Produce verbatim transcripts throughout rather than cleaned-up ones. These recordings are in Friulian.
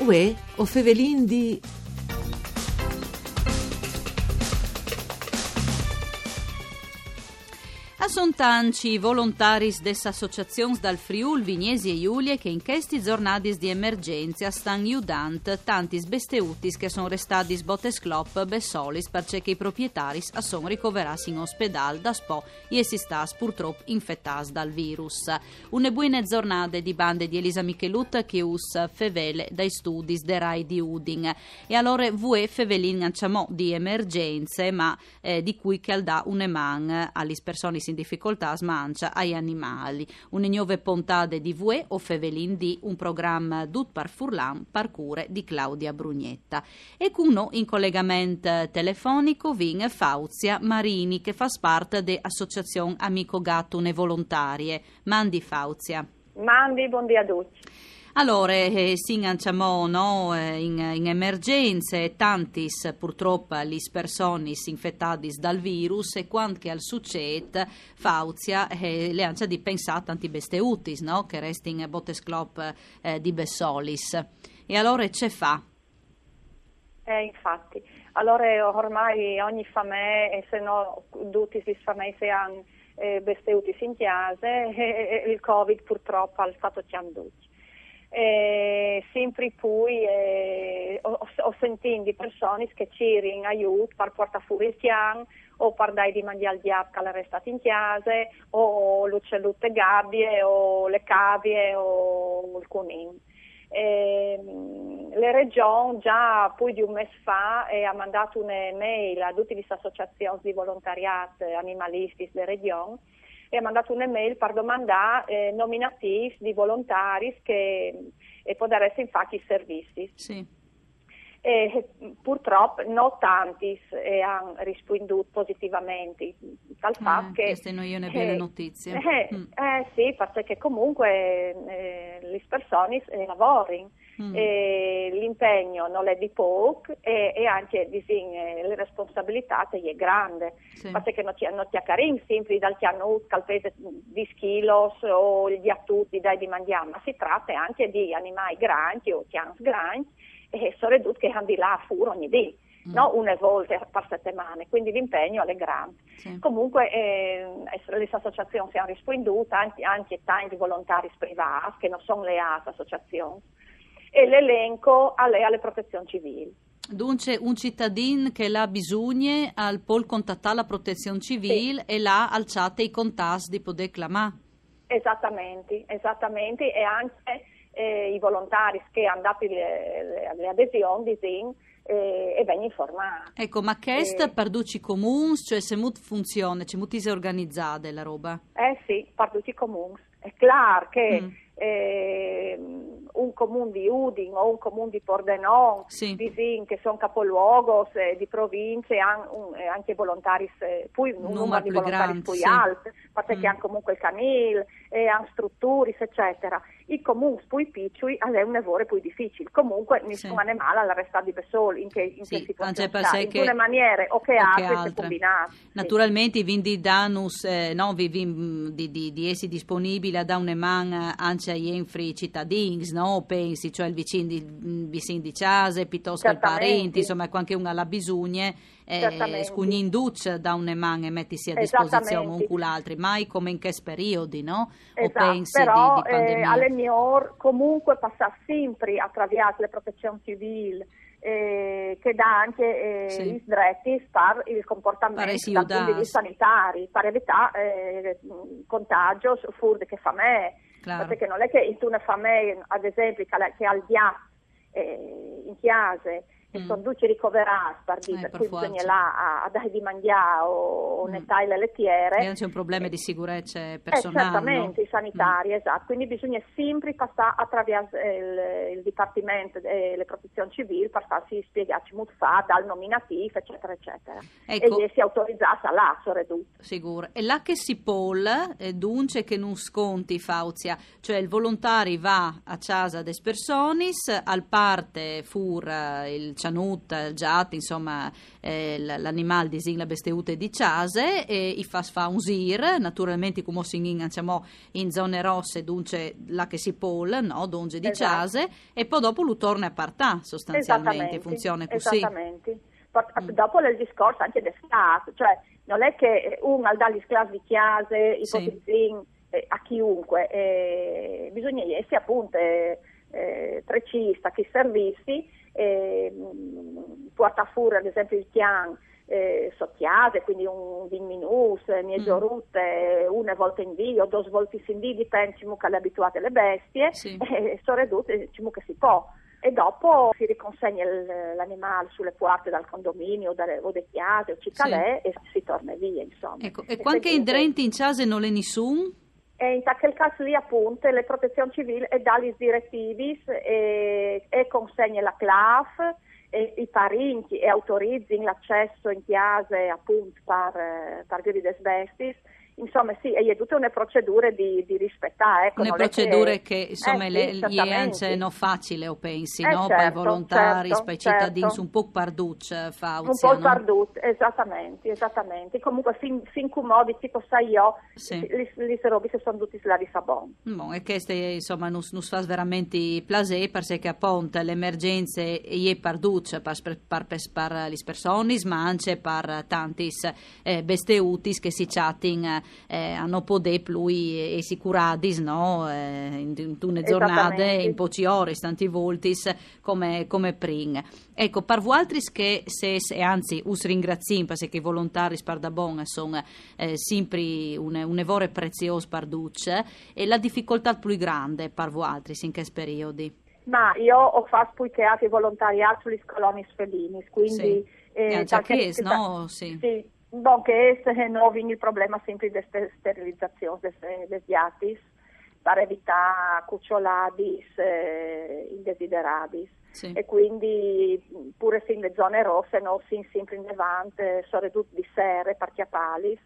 Uè, o fevelin di... A son tanci i volontaris des associazions dal Friûl Vignesie Julie che in chestis zornadis di emergence a stan judant tantis besteutis che a son restadis bote sclop bessolis, parcè che i proprietaris a son ricoverâts in ospedâl daspò jessi stâts purtrop infetâts dal virus. Une buine zornade di bande di Elisa Michelut che us fevele dai studis de Rai di Udin. E alore vuê fevelin ancjamò di emergence, ma eh, di cui che al dà une man a lis personis in dificoltât, ma ancje ai animâi. Une gnove pontade di vuê o fevelin di, un program dut par furlan, par cure di Claudia Brugnetta. E cun nô in colegament telefonic o vin Fauzia Marini, che e fâs part de associazion Amico Gat, une volontarie. Mandi Fauzia. Mandi, bundì a ducj. Alore, eh, sin ancjamò, no, eh, in, in emergence, tantis purtrop lis personis infetadis dal virus, e cuant che al sucêt, Fauzia, eh, al è ancje di pensâ a tantis besteutis, no, che a restin bote sclop, eh, di bessolis. E alore ce fâ? Eh, infati. Alore, ormai ogni famee, e se no dutis lis fameis a àn, eh, besteutis in cjase, e, e, e il Covid purtrop al sta tocjant ducj. E simpri plui, eh, o, o, o sintìn di personis che a cirin aiût par puartâ fûr il cjan, o par dâi di mangjâ al gjat che al è restât in cjase, o l'ucielut de gabie, o le cavie, o il cunin. Ehm, le Regjon za plui di un mês fa e à mandât une mail a dutis lis associazions di volontariât animalistis de Regjon, e à mandât une mail par domandâ, eh, nominatîfs di volontaris che, e podaressin fâ chei servizis. Sì. E, eh, purtrop no tantis, eh, a àn rispuindût positivamentri. Tal fat che... Cheste no je une biele notizie. Eh, eh, sì, parcè che comuncue, eh, lis personis, eh, lavorin. E l'impegn nol è di pôc e, e ancje, disìn, eh, le responsabilitât e je grande. Sì. Parcè che no cj-, no cjacarìn simpri dal cjanut che al pese dîs chilos o il gjatut di dâi di mangjâ, ma si trate ancje di animâi grancj o cjans grancj, e soredut che a àn di lâ fûr ogni dì, no une volte par setemane, cuindi l'impegn al è grant. Sì. Comuncue, eh, lis associazions a àn rispuindût, ancje, ancje tancj volontaris privâts che no son leâts a associazions, e l'elenco al è a le Protezion Civîl. Duncje, un citadin che al à bisugne al pol contatâ la Protezion Civîl e là al cjate i contats di podê clamâ. Esatamentri, esatamentri, e ancje, eh, i volontaris che a àn dât le, le, le adesions, disìn, eh, e vegnin informats. Eco, ma chest par ducj i comuns, cioè, cemût funzione, cemût ise organizade la robe? Eh sì, par ducj i comuns. Al è clâr che, ehm, un comun di Udin o un comun di Pordenon, sì, disìn, che a son capoluogos, eh, di provincie, a àn un, eh, ancje volontaris, eh, plui, un numar di volontaris plui alt, parcè che a àn comuncue il canîl, e a àn struturis, ecetera. I comuns plui piçui al è une vore plui dificil. Comuncue nissun animâl al resta di bessôl in chê, in chê situazion, ancje parcè che in une maniere o chê altre si combinàs. Naturalmentri, vin di dânus, eh, no, vi, vin, mm, di, di, di jessi disponibile a dâ une man, eh, ancje a jenfri citadins, no? O pensi, cioè il vicin di, mm, vicin di cjase, piutost che il parint, insome, cuant che un al à bisugne, eh, scugnìnducj dâ une man e metisi a disposizion un cul altri, mai come in chescj periodi, no? O pensi, però, di, di pandemie. Al è miôr comuncue passâ simpri a traviers le Protezion Civîl, eh, che e dà ancje, eh, lis dretis par il compuartament dal pont di vista sanitari, par evitâ, eh, contagjos fûr di chê famee. Clâr. Parcè che nol è che intune famee, ad esempli, che al, che al à il gjat, eh, in cjase, e a son ducj ricoverâts, par dî, par cui bisugne lâ a, a dâi di mangjâ o, o netâi le letiere. E ancje un probleme di sigurece personâl, no? Certamentri, sanitari, esat. Cuindi bisugne simpri passâ a traviers il, il dipartiment, eh, le Protezion Civîl, par fâsi spiegâ cemût fâ, dal nominatîf, ecetera, ecetera. Eco. E jessi autorizâts a lâ, soredut. Sigûr. E là che si pol, eh, duncje che nus conti, Fauzia, cioè il volontari al va a cjase des personis, al puarte fûr, eh, il cianut, eh, giat, insomma, eh, l-, l'animal, disìn, la besteute di cjase, e i fas fâ un zîr, naturalmentri, cumò sin in, dicemò, in zone rosse, duncje là che si pol, no? Duncje di cjase, e po dopo lu torne a puartâ, sostanzialmentri, funzione cussì. Esattamente. Dopo l'è il discors ancje dal Stât, cioè nol è che un al dà lis clâfs di cjase, ipotizìn, eh, a chiunque, eh, bisugne jessi apont, eh, eh, precîs a chei servizis, eh, puartâ fûr ad esempli il cjan, eh, sot cjase, cuindi un vincj minûts, eh, mieze orute, une volte in dì o dôs voltis in dì, dipent cemût che al è abituât la bestie, e soredut, eh, cemût che si pò. E dopo si riconsegne il, l'animâl su la puarte dal condomini o de, o de cjase o ce che al è e si torne vie, insome. Eco, e cuant che indrenti in cjase nol è nissun? E in chel câs li apont la Protezion Civîl e dà lis diretivis e, e consegne la clâf e i parincj e autorizin l'acès in cjase apont par, eh, par viodi des bestiis. Insome, sì, e je dute une procedure di, di rispietâ, eco. Une procedure che, insome, eh, sì, le, e je ancje no facile, o pensi, eh, no? Certo, pai volontaris, certo, pai citadins, certo. Un pôc par ducj, eh, Fauzia, no? Un pôc par ducj, esattamente, esattamente. Comunque, fin, fin cumò, di ce che o sai jo, sì, lis, lis robis a son dutis lâs a bon. Bon, e cheste, insome, nus, nus fâs verementri plasê, parcè che apont la emergjence e je par ducj, par, par, par, par lis personis, ma ancje par tantis eh, besteutis che si cjatin, eh, a no podê plui, eh, jessi curadis, no? Eh, in, intune zornade, in pocjis oris, tantis voltis, come, come prin. Eco, par vualtris che sês, e anzit us ringraziìn, parcè che i volontaris pardabon a son, eh, simpri une, une vore preziôs par ducj, e la dificoltât plui grande par vualtris in chest periodi? Ma jo o fâs plui che altri volontariât su lis coloniis felinis, cuindi... Sì. Eh, e ancje chest, no? Sì. Sì. Bon, che ès, eh, no, o vin il probleme simpri des ste-, sterilizazions des, eh, des gjatis, par evitâ cucjoladis, eh, indesideradis. Sì. E cuindi, pûr se in zone rosse, no, o sin simpri indevant, eh, soredut di sere, par cjapâlis,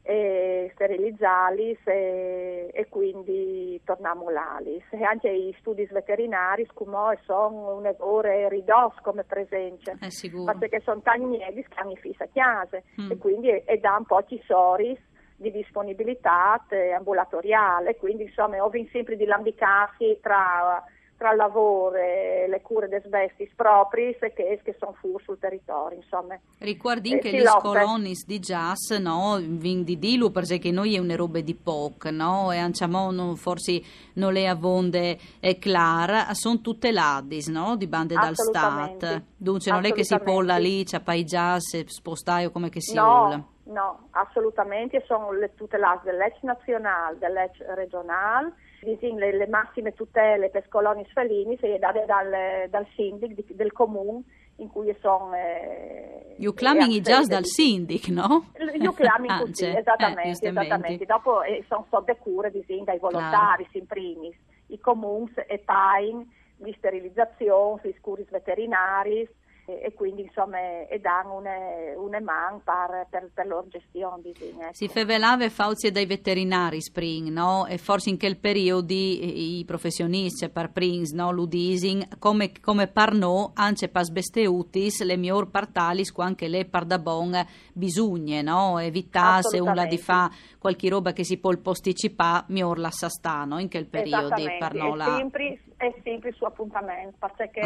e sterilizâlis e, e cuindi tornâ a mulâlis. E ancje i studis veterinaris, cumò, a son une vore ridôts come presence. Eh, sigûr. Parcè che a son tancj miedis che a àn i fîs a cjase, e cuindi a, a dan pocjis oris di disponibilitât, eh, ambulatoriâl, e cuindi, insome, o vin simpri di lambicâsi tra, tra il lavôr e la cure des bestiis propriis e chês che a son fûr sul teritori, insome. Ricuardìn che lis coloniis di cjase, no, o vin di dîlu, parcè che no je une robe di pôc, no? E ancjemò, no, forsit nol è avonde, eh, clâr, a son tuteladis, no? Di bande dal Stât. Duncje, nol è che si pol lâ li, cjapâ i cjase, spostâju come che si vûl. No, no, assolutamentri, a son tuteladis de leç nazionâl, de leç regjonâl, disìn, la, la massime tutele pes coloniis felinis e je dade dal, dal sindic di, dal comun in cui a son, eh... Ju clamin i cjase dal sindic, no? Ju clamin cussì, esattamente, esattamente. Dopo, eh, a son sot de cure, disìn, dai volontaris in primis. I comuns a pain lis sterilizazions, lis curis veterinariis, e, e cuindi, insome, a dan une, une man par, par, par lôr gjestion, disìn, eco. Si fevelave, Fauzie, dai veterinaris prin, no? E forsit in chel periodi, eh, i professioniscj, cioè, par prins, no? Lu disin, come, come par nô, ancje pes besteutis, al è miôr puartâlis cuant che al è pardabon bisugne, no? Evitâ, se un al à di fâ cualchi robe che si pol posticipâ, miôr lassâ stâ, no? In chel periodi, par nô. Esattamente, e simpri, e simpri su apontament, parcè che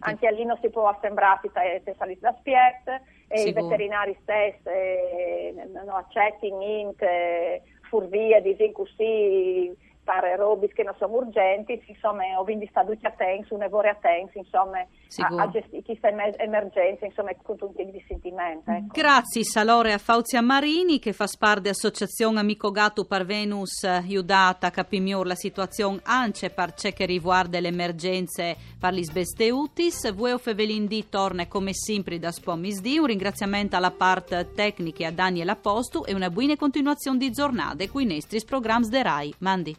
ancje li no si pues assembrâsi te, te saliis d'aspiet, e i veterinaris stes, eh, no, no acetin int, eh, furvie, disìn cussì, par robis che no son urgjentis, insome, o vin di stâ ducj atents, une vore atents, insome, a, a gjestî cheste emer-, emergjence, insome, cuntun tic di sintiment, eco. Graciis alore a Fauzie Marini, che e fâs part de associazion Amico Gatto, par vênus judât a capî miôr la situazion ancje par ce che al rivuarde la emergjence par lis besteutis. Vuê o fevelìn di torne come simpri daspò misdì. Un ringraziament a la part tecniche, a Daniel Apostu, e une buine continuazion di zornade cui nestris programs de Rai. Mandi.